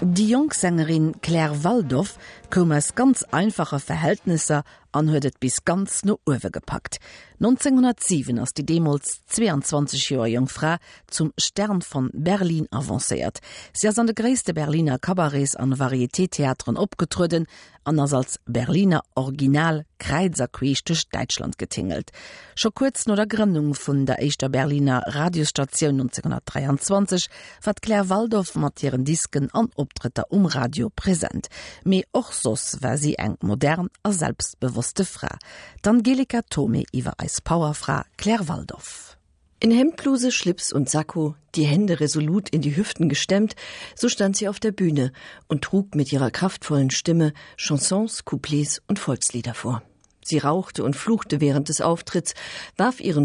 Déi jonk Sängerin Claire Waldoff koum aus ganz einfache Verhältnesser an huet et bis ganz no uewe gepackt. 1907 ass déi deemools 22 Joer jonk Fra zum Stern von Berlin avancéiert. Si ass an de gréisste Berliner Cabarets an Varieté-Theateren opgetrueden an ass als Berliner Original kräiz a queesch duerch Däitschland getingelt. Scho kuerz no der Grënnung vun der éischter Berliner Radiosstatioun 1923 war d'Claire Waldoff mat hiren Disken an Optrëtter um Radio present. Mee och soss war si eng modern a selbstbewosste Fra. D'Angelika Thomé iwwer eis Powerfra Claire Waldoff. In Hemdbluse, Schlips und Sakko, die Hände resolut in die Hüften gestemmt, so stand sie auf der Bühne und trug mit ihrer kraftvollen Stimme Chansons, Couplets und Volkslieder vor. Sie rauchte und fluchte während des Auftritts, warf ihren.